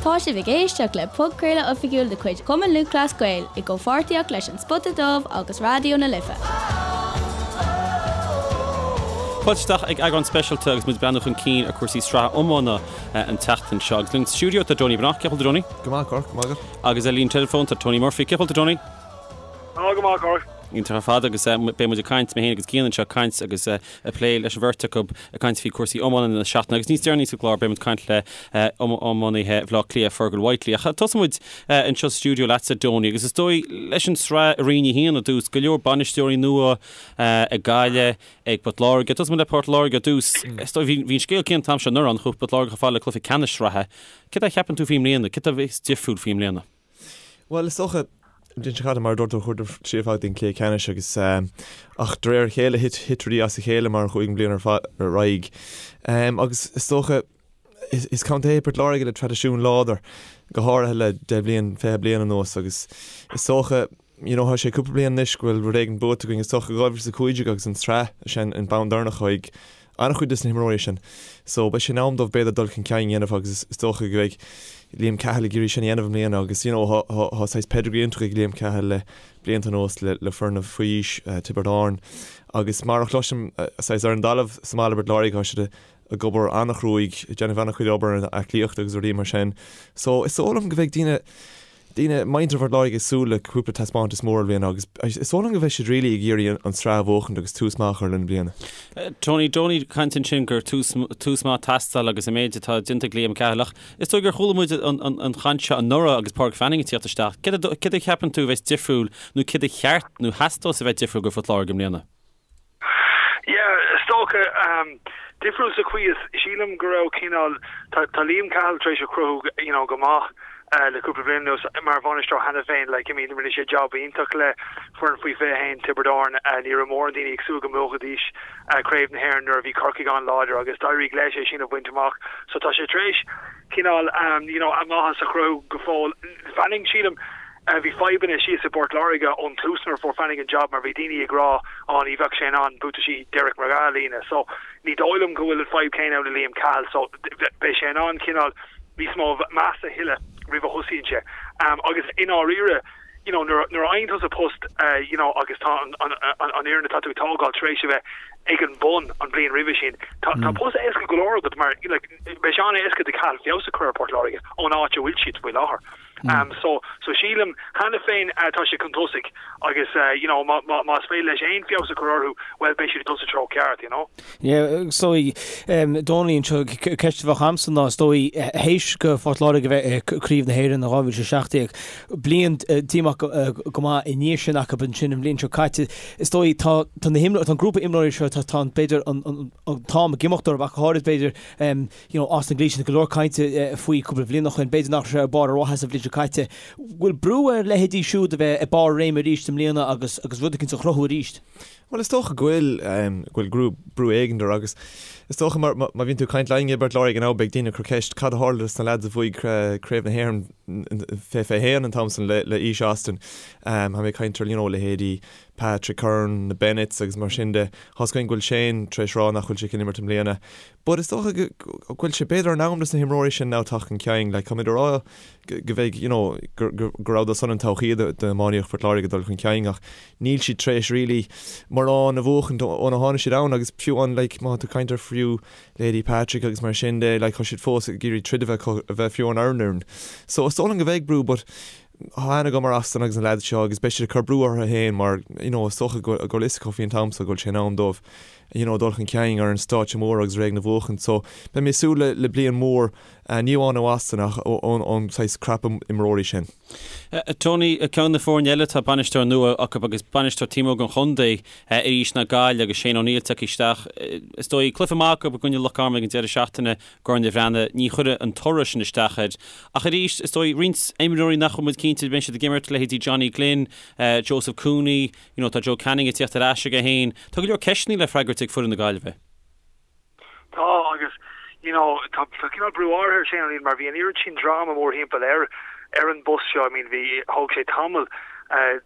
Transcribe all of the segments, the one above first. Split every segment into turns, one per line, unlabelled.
Tá sibh ag éisteacht le podchraoladh oifigiúil de chuid Chumann Lúthchleas Gael i gcomhpháirtíocht leis An Spota Dubh agus Raidió na Life.
Fáilte isteach ag eagrán speisialta agus muid ag breathnú chun cinn ar chúrsaí sraithe iomána an tseachtain seo. Agus linn sa stiúideo tá Donie Breathnach. Cén chaoi a bhfuil tú Donie?
Go maith, Cork, go maith agat.
Agus ar líne teileafóin tá Tony Murphy. Cén chaoi a bhfuil tú Tony?
Tá go maith, Cork.
Iontach ar fad agus beidh muid ag caint, mé féin agus Cian anseo ag caint agus ag plé leis an bheirt acu ag caint faoi chúrsaí iomána na seachtaine agus níos deireanaí sa gclár beidh muid ag caint le iománaithe Bhaile Átha Cliath, Fergal Whitely. Ach tosóidh muid anseo sa stiúideo leatsa, Donie, agus is dóigh leis an tsraith i Roinn 1 i dtús, go leor bainisteoirí nua ag Gaillimh, ag Port Láirge. Tosóidh muid le Port Láirge i dtús. Is dóigh bhí an scéal céanna an t-am seo anuraidh, chuaigh Port Láirge chomh fada le cluiche ceannais sraithe. Céard a cheapann tú faoi i mbliana? Céard a bheas difriúil faoi i mbliana?
Bhuel, is dócha, an bhliain seo caite, mar a dúirt tú, chuadar siar fad go dtí an cluiche ceannais agus, ach de réir a chéile thit, thit rudaí as a chéile mar a chuaigh an bhliain ar fad ar aghaidh. Agus is dócha, is, is contae é Port Láirge le traidisiún láidir, go háirithe le 10 bliain, 20 bliain anuas agus is dócha, you know, tá sé cúpla bliain anois go bhfuil rud éigin buaite againn, is dócha 2015 agus an tsraith sin an bonn deireanach ag an-chuid de na himreoirí sin. So beidh sé in am dóibh b'fhéidir dul chun cinn a dhéanamh agus is dócha go mbeidh Liam Cahill ag iarraidh sin a dhéanamh i mbliana agus you know tá tá saghas pedigree iontach ag Liam Cahill le blianta anuas le le foirne faoi aois Tiobraid Árann agus mar a chloisim saghas ar an dtalamh sa mbaile i bPort Láirge tá siad ag obair an-chruaidh, ag déanamh an-chuid obair ar an aclaíocht agus rudaí mar sin. So is dóigh liom go mbeidh daoine daoine, muintir Phort Láirge ag súil le cúpla taispeántas mór i mbliana agus is dóigh liom go mbeidh siad really ag iarraidh an tsraith a bhuachaint agus tús maith a chur lena bliana.
Tony, Donie ag caint ansin gur tús, tús maith ag teastáil agus an méid atá déanta ag Liam Cahill ach is dóigh gur chuala muid an, an, an chaint seo anuraidh agus Pádraig Fanning ag tíocht isteach. Céard a, céard a cheapann tú a bheas difriúil nó céard a cheart nó theastós a bheith difriúil go Phort Láirge i mbliana?
Yeah, is dócha, difriúil sa chaoi is, sílim go raibh cineál, tá, tá Liam Cahill tar éis a chruthú, you know, go maith le cúpla bliain anuas mar bhainisteoir cheana féin, like, I mean, rinne sé job iontach le foireann faoi 21 Tiobraid Árann, ní raibh mórán daoine ag súil go mbuafaidís Craobh na hÉireann nuair a bhí Corcaigh an-láidir agus d'éirigh leis é sin a bhaint amach. So tá sé tar éis cineál, you know, a mhaitheas a chruthú go fóill. Fanning, sílim, Bhí fadhbanna síos i bPort Láirge ón tús nuair a fuair Fanning an job mar bhí daoine ag rá á ní bheadh sé in ann buataisí Derek McGrath a líonadh. So ní dóigh liom go bhfuil an fadhb céanna ann le Liam Cahill so beidh sé in ann cineál níos mó meas a thuilleadh roimh a thosaíonn sé. Agus i ndáiríre you know nuair nuair a fhaigheann tusa post you know agus tá an an an fhoireann atá tú ag tógáil tar éis a bheith ag an bun an bhliain roimhe sin tá tá post éasca go leor agat mar like beidh sé an-éasca do Cahill feabhas a chur ar Port Láirge ón áit a bhfuil siad faoi láthair. So, so sílim cheana féin tá sé chun tosaigh agus you know má, má, más féidir leis aon feabhas a chur orthu, bhuel beidh siad ag dul sa treo ceart, you know.
Yeah, is dóigh, Donie anseo, ceist a bheadh a'msa ná is dóigh théis go Phort Láirge a bheith i Craobh na hÉireann in 2017, bliain díomách go maith i ndiaidh sin acu ansin an bhliain seo caite, is dóigh tá, tá na himreoirí, tá an grúpa imreoirí seo, tá, tá an, b'fhéidir an, an, an t-am ag imeacht orthu ach go háirid b'fhéidir, you know, Austin Gleeson, go leor cainte faoi cúpla bliain ó shin, b'fhéidir nach raibh sé ar barr a mhaitheasa an bhliain seo caite. Bhfuil brú ar leithéidí siúd a bheith ag barr a réime arís i mbliana agus agus rud eicínt a chruthú arís?
Bhuel, is dócha go bhfuil, go bhfuil brú, brú éigin air agus is dócha mar, má bhíonn tú ag caint linn i bPort Láirge now beidh daoine ag cur ceist cad a tharla dos na lads a bhuaigh Craobh na hÉireann 2021 an t-am san le, le aois Austin. Tá mé ag caint ar, you know, leithéidí Patrick Curran, na Bennetts agus mar sin de. Tá's againn go bhfuil Shane tar éis rá nach bhfuil sé chun imirt i mbliana. But is dócha go bhfuil sé b'fhéidir in am dos na himreoirí sin now teacht chun cinn. Like táimid ag rá go mbeidh you know go go rabhadar san an todhchaí d'iománaíocht Phort Láirge ag dul chun cinn ach níl siad tar éis really mórán a bhuachaint óna tháinig siad ann agus fiú an like má tá tú ag caint ar fiú leithéidí Patrick agus mar sin de like tá siad fós ag iarraidh troid a bheith acu a bheith fiú ar an fhoireann. So is dóigh liom go mbeidh brú but tá aithne agam ar Austin agus na lads seo agus beidh siad ag cur brú orthu féin mar you know is dócha go bhfuil fhios acu faoin t-am so go bhfuil sé in am dóibh you know, dul chun cinn ar an stáitse mór agus rud éigin a bhuachaint. So, beidh mé ag súil le, le bliain mhór, ní amháin ó Austin ach ón, ón saghas crop imreoirí sin.
Tony, ceann de na foirne eile tá bainisteoir nua acu agus bainisteoir taobh amuigh den chontae arís ná Gaillimh agus Shane O'Neill tagtha isteach. Is dóigh, cluiche maith acu i gcoinne Loch Garman ag an deireadh seachtaine, gCorn an Bhreathnaigh, ní chuirfidh an toradh sin isteach air. Ach arís, is dóigh, roinnt imreoirí nach bhfuil muid cinnte an mbeidh siad ag imirt, leithéidí Johnny Glynn, Joseph Cooney, You know, tá Joe Canning ag tíocht ar ais aige féin. Tá go leor ceisteanna le freagairt ag foireann na Gaillimhe.
Tá, agus, you know, tá tá cineál brú áirithe ar Shane O'Neill mar bhí an oiread sin dráma mórthimpeall air ar an bpost seo. I mean, bhí, thóg sé tamall.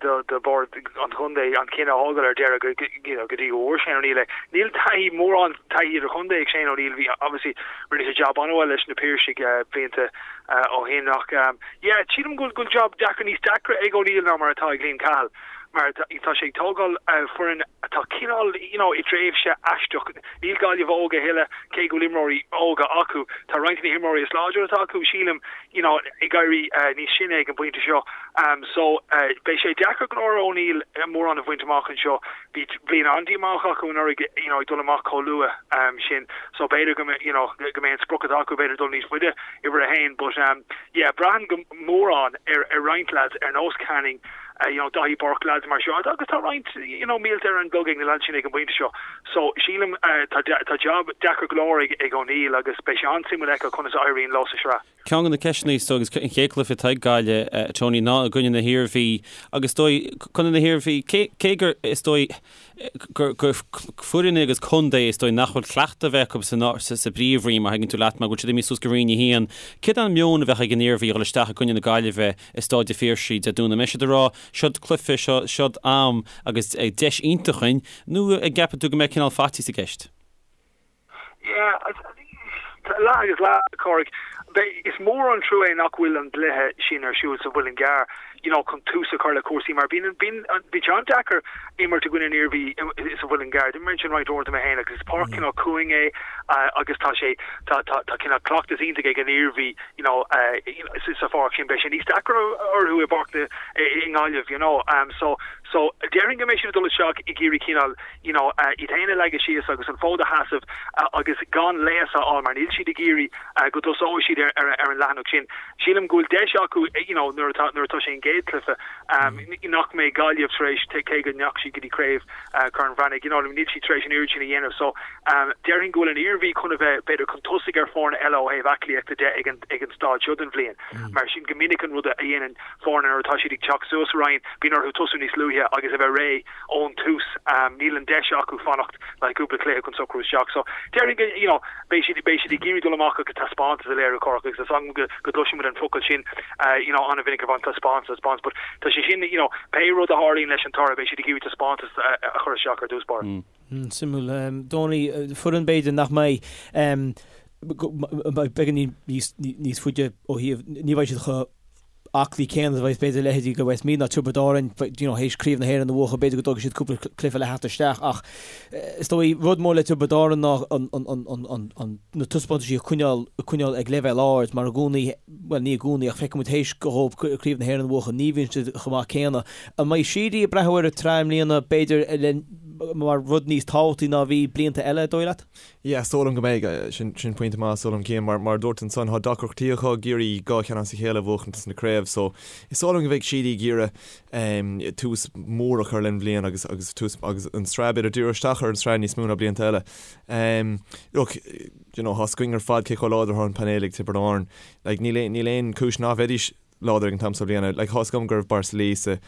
Do bhord an chontae an cinneadh a thógáil ar deireadh go you know go dtí go bhfuair Shane O'Neill é. Níl taithí mórán taithí idirchontae ag Shane O'Neill bhí obviously rinne sé jab an-mhaith leis na Piarsaigh blianta ó shin ach yeah sílim go bhfuil job deacair níos deacra ag O'Neill ná mar atá ag Liam Cahill mar tá sé ag tógáil foireann atá cineál you know i dtréimhse aisteach. Níl Gaillimh óg a thuilleadh cé go bhfuil imreoirí óga acu. Tá roinnt de na himreoirí is láidre atá acu sílim you know ag éirí níos sine ag an bpointe seo. So beidh sé deacair go leor O'Neill mórán a bhaint amach anseo. Bhí bliain an-díomách acu anuraidh you know ag dul amach chomh luath sin. So b'fhéidir go you know go mbeidh an sprioc atá acu b'fhéidir dul níos faide uimhir a haon. But yeah braitheann go mórán ar ar roinnt lads ar nós Canning you know Daithí Burke lads mar seo agus tá roinnt you know mílte ar an gclog ag na lads sin ag an bpointe seo. So sílim tá tá job deacair go leor ag ag O'Neill agus beidh sé an-suimiúil a fheiceáil conas a éiríonn leo sa sraith.
Ceann de na ceisteanna is dóigh agus an chéad chluiche atá ag Gaillimh, Tony, ná i gcoinne na hIarmhí agus is dóigh, contae na hIarmhí, cé, cé gur, is dóigh, gur, gur foireann agus contae is dóigh nach bhfuil cleachtadh a bheith acu sa, sa, sa bpríomhroinn má thuigeann tú leat mar go bhfuil siad imithe suas go Roinn 1. Céard an meon a bheadh ag an Iarmhí a dhul isteach i gcoinne na Gaillimhe i Staid an Phiarsaigh Dé Domhnaigh? An mbeidh siad ag rá, seod cluiche, seo, seod am agus deis iontach againn, nó an gceapann tú go mbeidh cineál faitíos i gceist?
Yeah, leath agus leath, a Chárthaigh. Is mór an trua é nach bhfuil an gcluiche sin ar siúl sa Mhuileann gCearr, you know, chun tús a chur le cúrsaí mar bíonn, bíonn, bíonn sé an-deacair imirt i gcoinne an Iarmhí sa Mhuileann gCearr. D'imir mé ansin roinnt uaireanta mé féin agus is páirc cineál cúng é agus tá sé, tá, tá, tá cineál cleachtas iontach ag an Iarmhí, you know, sa pháirc sin. Beidh sé níos deacra orthu i bpáirc na, i nGaillimh, you know. So, so déarfainn go mbeidh siad ag dul isteach ag iarraidh cineál, you know, iad féin a leagadh síos agus an fód a sheasamh agus gan léas a fháil mar níl siad ag iarraidh go dtosóidh siad ar an leathanach sin. Sílim go bhfuil deis acu, you know, nuair atá, nuair atá sé an gcéad cluiche, nach mbeidh Gaillimh tar éis, cé go ndeachaigh siad go dtí craobh Chorn Bhreathnaigh, you know, níl siad tar éis an oiread sin a dhéanamh. So, déarfainn go bhfuil an Iarmhí chun a bheith, b'fhéidir, chun tosaigh ar foirne eile ó thaobh aclaíochta de ag an, ag an staid seo den bhliain. Mar sin, go minic an rud a dhéanann foirne nuair atá siad ag teacht suas sa roinn, bíonn orthu tosú níos luaithe agus a bheith réidh ón tús. Níl an deis acu fanacht le cúpla cluiche chun socrú isteach. So, déarfainn go, you know, beidh siad, beidh siad ag iarraidh dul amach agus taispeántas a léiriú Cork agus is agam go, go gcloisimid an focal sin, you know, an-mhinic ar fad, taispeántas, taispeántas, but tá sé sin, you know, pé rud a tharlaíonn leis an toradh, beidh siad ag iarraidh taispeántas a chur isteach ar dtús báire.
Suimiúil. Dónall, foireann b'fhéidir nach mbeidh, beagáinín níos, níos faide ó thaobh, ní bheidh siad chomh aclaí céanna a bheidh b'fhéidir leithéidí de Westmeath ná Tiobraid Árann, you know, théis Craobh na hÉireann a bhuachan, b'fhéidir go dtógfaidh siad cúpla cluiche le theacht isteach ach is dóigh rud mór le Tiobraid Árann ná an, an, an, an, an, an, na taispeántaisí a choinneáil, a choinneáil ag leibhéal ard mar i gcónaí, bhuel ní i gcónaí ach feiceann muid théis dhóibh Craobh na hÉireann a bhuachan ní bhíonn siad chomh maith céanna. An mbeidh Sheedy ag breathnú ar an tsraith i mbliana b'fhéidir le, mar rud níos tábhachtaí ná a bhí blianta eile, an dóigh leat?
Yeah, is dóigh liom go mbeidh. Sin, sin pointe maith, is dóigh liom, Cian. Mar, mar a dúirt ansan, tá deacrachtaí acu ag iarraidh dhá cheann as a chéile a bhuachaint sna craobh, so is dóigh liom go mbeidh Sheedy ag iarraidh em, tús mór a chur len bhliain agus, agus tús, agus an tsraith, b'fhéidir díriú isteach ar an tsraith níos mó ná blianta eile. Em, look, you know, tá's againn ar fad cé chomh láidir atá an painéal ag Tiobraid Árann. Like, níl aon, níl aon chúis ná bheidís láidir ag an t-am seo bliana. Like, tá's agam go raibh Borris-Ileigh sa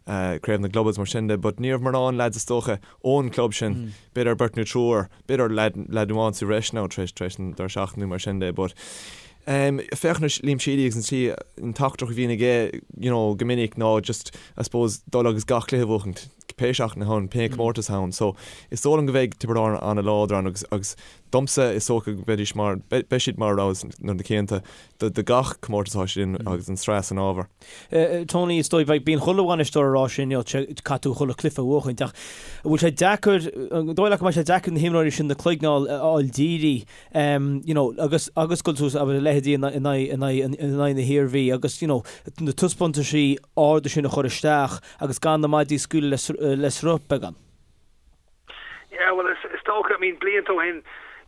Craobh na gClub agus mar sin de, but ní raibh mórán lads is dócha ón club sin, b'fhéidir beirt nó triúr, b'fhéidir lad, lad amháin sa bhreis now tar éis, tar éis an deireadh seachtaine nó mar sin de, but em, féach anois Liam Sheedy agus an tslí, an teachtaireacht a bhíonn aige, you know, go minic ná just, I suppose, dul agus gach cluiche a bhuachaint, pé seachtain atá ann, pé comórtas atá ann. So, is dóigh liom go mbeidh Tiobraid Árann an-láidir ann agus, agus domsa is dócha go mbeidís mar, beidh siad mar rogha na cinnte do gach comórtas atá siad in agus an tsraith san ábhar.
Tony, is dóigh, bíonn chuile bhainisteoir ag rá sin, you know, caithfidh tú chuile chluiche a bhuachaint ach an bhfuil sé deacair, an dóigh leat go mbeidh sé deacair na himreoirí sin na cloigne a fháil dírithe, you know, agus agus dul suas abair a leithéidí in aghaidh in aghaidh in aghaidh na hIarmhí agus, you know, na taispeántaisí arda sin a chur isteach agus gan na maidí a scaoileadh le le sruth beagán.
Yeah, well, is, is dócha, I mean, blianta ó shin,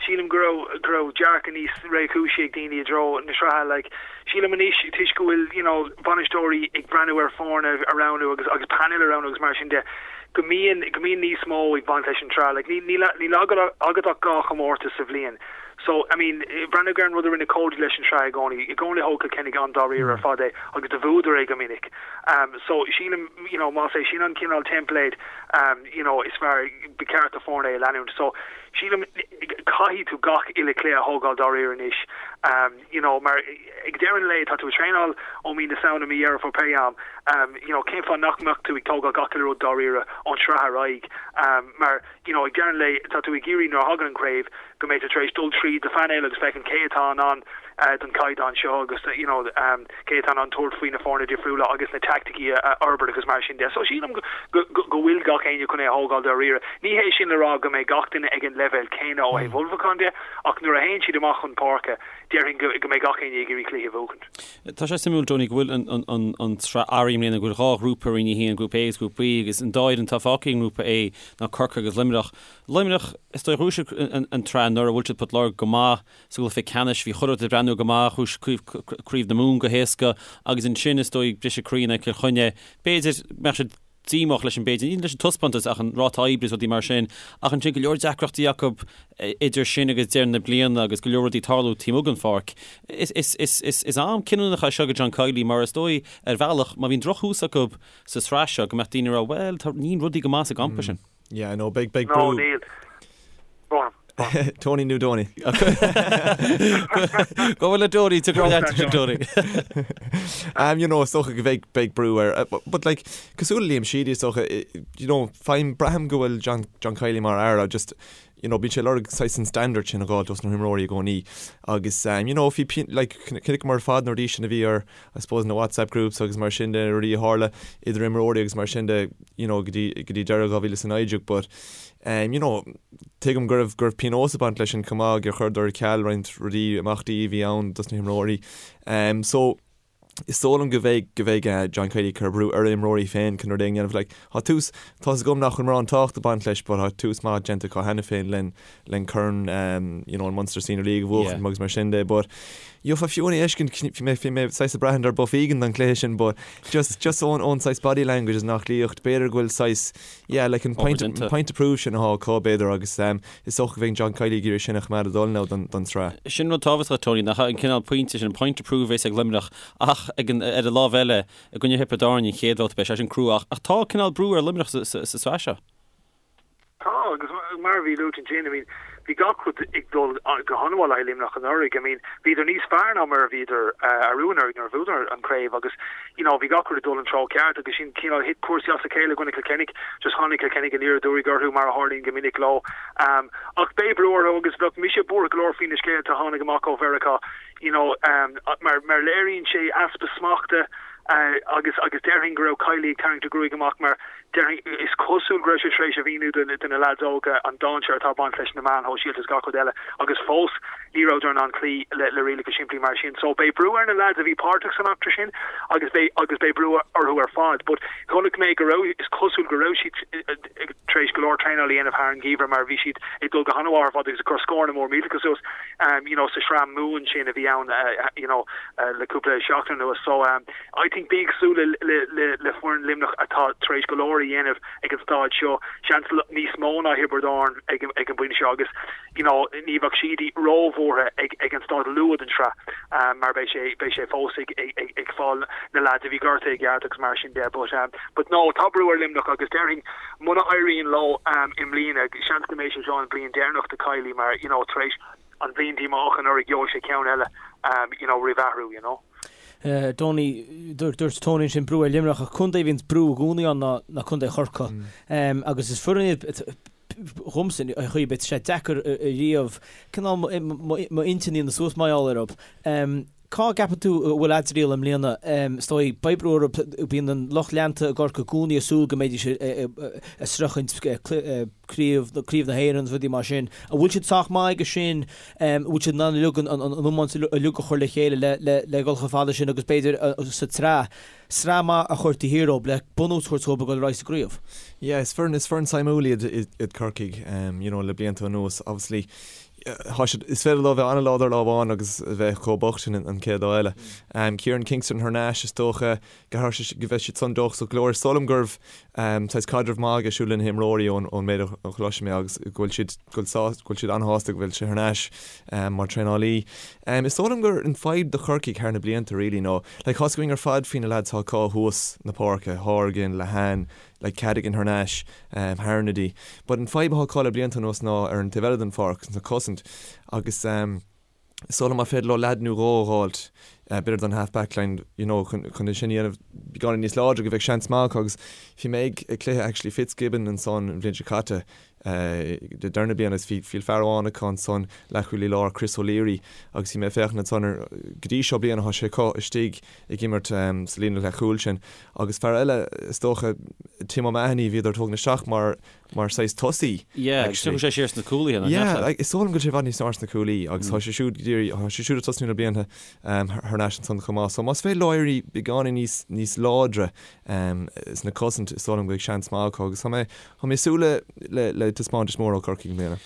sílim go raibh, go raibh dearcadh níos réchúisí ag daoine i dtreo na sraithe, like, sílim anois, toisc go bhfuil, you know, bainisteoirí ag breathnú ar foirne a roghnú agus, agus painéil a roghnú agus mar sin de, go mbíonn, go mbíonn níos mó ag baint leis an tsraith, like, ní, níl, níl agat, agat ach dhá chomórtas sa bhliain. So, I mean, breathnaigh ar an rud a rinne Cody leis an tsraith i gcónaí, i gcónaí thóg Cill Chainnigh an-dáiríre ar fad é agus do bhuadar é go minic. Um, so, sílim, you know, más é sin an cineál teimpléad, um, you know, is fearr, ba cheart do foirne é a leanúint. So, Sílim, caithfidh tú gach uile chluiche a thógáil dáiríre anois, you know, mar ag deireadh an lae tá tú ag traenáil ó mí na Samhna, mí Dheireadh Fómhair, pé am, you know, cén fáth nach mbeadh tú ag tógáil gach uile rud dáiríre ón tsraith ar aghaidh, mar, you know, ag deireadh an lae tá tú ag iarraidh nuair a thagann an chraobh go mbeidh tú tar éis dul tríd do phainéal agus féachaint cé atá in ann don chaighdeán seo agus you know cé atá in ann tabhairt faoi na foirne difriúla agus na teaicticí a fhorbairt agus mar sin de. So sílim go go bhfuil gach éinne chun é a thógáil dáiríre. Ní hé sin le rá go mbeidh gach duine ag an leibhéal céanna ó thaobh ullmhúcháin de ach nuair a théann siad amach chun páirce déarfainn go go mbeidh gach éinne ag iarraidh cluiche a bhuachaint.
Tá sé suimiúil, Tony, go bhfuil an an an tsraith athraithe i mbliana, go bhfuil dhá ghrúpa ar Roinn 1, Grúpa A agus Grúpa B, agus an dá fhoireann atá fágtha i nGrúpa A ná Corcaigh agus Luimneach. Luimneach, is dóigh, ghnóthaigh siad an tsraith anuraidh, bhuail siad Port Láirge go maith sa gcluiche ceannais, bhí chuile rud ag breathnú go maith, ghnóthaigh siad Craobh na Mumhan go héasca agus ansin, is dóigh, briseadh croí in aghaidh Chill Chainnigh. B'fhéidir go mbeadh siad díomách leis an, b'fhéidir, ní leis an taispeántas ach an ráta oibre is rudaí mar sin, ach ansin go leor deacrachtaí acu idir sin agus deireadh na bliana agus go leor rudaí ag tarlú taobh amuigh den pháirc. Is am cinniúnach é seo do John Kiely mar is dóigh, ar bhealach, má bhíonn drochthús acu sa tsraith seo, go mbeadh daoine ag rá, bhuel, tá, níl rudaí go maith sa gcampa sin.
Yeah, I know, beidh, beidh brú.
No, níl. Go on.
Tony nó Donie?
Go bhfuil le Donie, tá go leat sin Tony.
Um, you know, is dócha go bheidh, beidh brú air. Uh, but, but like, cosúil le Liam Sheedy, is dócha, you know, faighim, braithim go bhfuil John, John Kiely mar fhear, just, you know, bíonn sé ag lorg saghas an standard sin a dh'fháil dos na himreoirí i gcónaí. Agus, um, you know, bhí, like, chonaiceamar ar fad na rudaí sin a bhí ar, I suppose, na WhatsApp groups agus mar sin de, na rudaí a tharla idir imreoirí agus mar sin de, you know, go dtí, go dtí deireadh 2019 but, um, you know, tuigim go raibh, go raibh pionós ag baint leis sin chomh maith gur chuireadar ar ceal roinnt rudaí, imeachtaí a bhí ann dos na himreoirí. Um, so, is dóigh liom go mbeidh, go mbeidh eh, John Kiely ag cur brú ar a imreoirí féin chun rud éigin a dhéanamh. Like, tá tús, tá's agam nach bhfuil mórán tábhacht ag baint leis but tá tús maith déanta acu cheana féin len, len Corn, um, you know, an Munster Senior League a bhuachan Yeah. agus mar sin de but Gheofá fiú é a fheiscint, bhí mé, bhí mé saghas ag braithint ar buff éigin don chluiche sin but just, just ón, ón saghas body language is an aclaíocht, b'fhéidir go bhfuil saghas, yeah, like an point, an point to prove sin atá acu b'fhéidir agus um, is dócha go mbeidh John Kiely ag iarraidh sin a choimeád ag dul now don, don tsraith.
Sin rud tábhachtach, Tony, nach an cineál pointe sin, an point to prove a bheas ag Luimneach ach ag an, ar an lámh eile, i gcoinne Thiobraid Árann an chéad bhabhta, beidh sé sin crua ach, ach tá cineál brú ar Luimneach sa, sa, sa tsraith seo.
Tá, agus mar a bhí luaite ansin, I mean, bhí gach rud ag dul go han-mhaith le haghaidh Luimneach anuraidh. I mean, bhíodar níos fearr ná mar a bhíodar arú anuraidh nuair a bhuadar an chraobh agus, you know, bhí gach rud ag dul an treo ceart agus sin cineál thit cúrsaí as a chéile i gcoinne Cill Chainnigh. Just tháinig Cill Chainnigh aniar aduaidh orthu mar a tharlaíonn go minic leo. Um, ach beidh brú orthu agus bheadh mise buartha go leor faoi na scéalta a tháinig amach ó Mheiriceá, you know, um, mar, mar léiríonn sé easpa smachta uh, agus, agus déarfainn go raibh Kiely ag tarraingt a ghruaig amach mar Déarfainn, is cosúil go raibh sé tar éis a mhíniú do na leaids óga an dainséar atá ag baint leis na meáin shóisialta is gach rud eile agus fós ní rabhadar in ann cloí le rialacha simplí mar sin. So beidh brú ar na leaids a bhí páirteach san eachtra sin agus beidh agus beidh brú orthu ar fad. But chonaic mé go raibh, is cosúil go raibh siad tar éis go leor traenáil a dhéanamh thar an gheimhreadh mar bhí siad ag dul go han-mhaith ar fad agus ag cur scóranna mór millteacha suas you know sa sraith Mumhan sin a bhí ann you know le cúpla seachtain anuas. So I think bí ag súil le foireann Luimneach atá tar éis go leor a dhéanamh ag an staid seo, seans níos mó ná Thiobraid Árann ag an bpointe seo agus you know ní bheadh siad róbhuartha ag an staid luath den tsraith mar beidh sé beidh sé fós ag ag ag fáil na leaids a bhí gortaithe i gceart agus mar sin de but but no tá brú ar Luimneach agus déarfainn muna éiríonn leo i mbliana seans go mbeidh sé seo an bhliain deireanach do Kiely mar you know tar éis an bhliain díomách anuraidh gheobhaidh sé ceann eile you know roimh athrú you know.
Donie, dúirt Tony ansin brú ar Luimneach ach contae a bhíonns brú i gcónaí ann ná ná contae Chorcaí. Agus is foireann iad dhomsa ar chaoi ar bith, tá sé deacair ariamh cineál m'intinn a dhéanamh suas mar gheall orthu. Cá gceapann tú a bhfuil a dtriall i mbliana? Is dóigh, beidh brú orthu, bíonn an lucht leanta i gCorcaigh i gcónaí ag súil go mbeidís ag sroichint craobh, craobh na hÉireann agus rudaí mar sin. An bhfuil siad sách maith aige sin? An bhfuil siad in ann uilig an iomáint uilig a chur le chéile le le le dhul chomh fada sin agus b'fhéidir sa tsraith, sraith maith a chur taobh thiar dóibh le bunús a thabhairt dóibh a dhul ar aghaidh sa gcraobh?
Yeah, is foireann, is foireann suimiúil iad iad Corcaigh, you know, le blianta anuas. Obviously, tá siad, is féidir leo bheith an-láidir lá amháin agus a bheith chomh bocht sin an chéad lá eile. Kieran Kingston thar n-ais, is dócha, go mbeidh siad san dóchasach go leor. Is dóigh liom go raibh saghas caidreamh maith aige siúd le na himreoirí ón méid a chloisim mé agus go bhfuil siad go bhfuil siad an-shásta go bhfuil sé thar n-ais mar traenálaí. Is dóigh liom gur an fadhb do Chorcaigh thar na blianta really ná like tá's againn ar fad faoi na lads atá acu thuas na páirce, Horgan, Lehane, like Cadogan thar n-ais, Harnedy. But an fadhb atá acu le blianta anuas ná ar an taobh eile den pháirc, sna cosaint agus is dóigh liom má féidir leo leaid nó dhó a dh'fháilt, b'fhéidir don half back line, you know, chun chun é sin a dhéanamh beagáinín níos láidre go bheadh seans maith acu agus bhí mé ag ag cluiche actually Fitzgibbon ansan an bhliain seo caite, deireadh na bliana agus bhí fear amháin acu ansan, leathchúlaí láir, Chris O'Leary, agus bhí mé ag féachaint ansan ar, go dtí seo bliana tá sé acu istigh ag imirt sa líne leathchúil sin. Agus fear eile, is dócha, Tim O'Mahony, bhíodar ag tógaint isteach mar, mar saghas tosaí.
Yeah, agus
tiocfaidh
sé siar sna cúlaithe,
nach Yeah, like, is dóigh liom go bhfuil sé i bhfad níos fearr sna cúlaí agus tá sé siúd go díreach, tá sé siúd ag tosnú le blianta thar n-ais ansan chomh maith. So más féidir leo éirí beagáinín níos, níos láidre sna cosaint, is dóigh liom go mbeidh seans maith acu agus tá mé, Tá mé ag súil le le taispeántas mór ó Chorcaigh i
mbliana.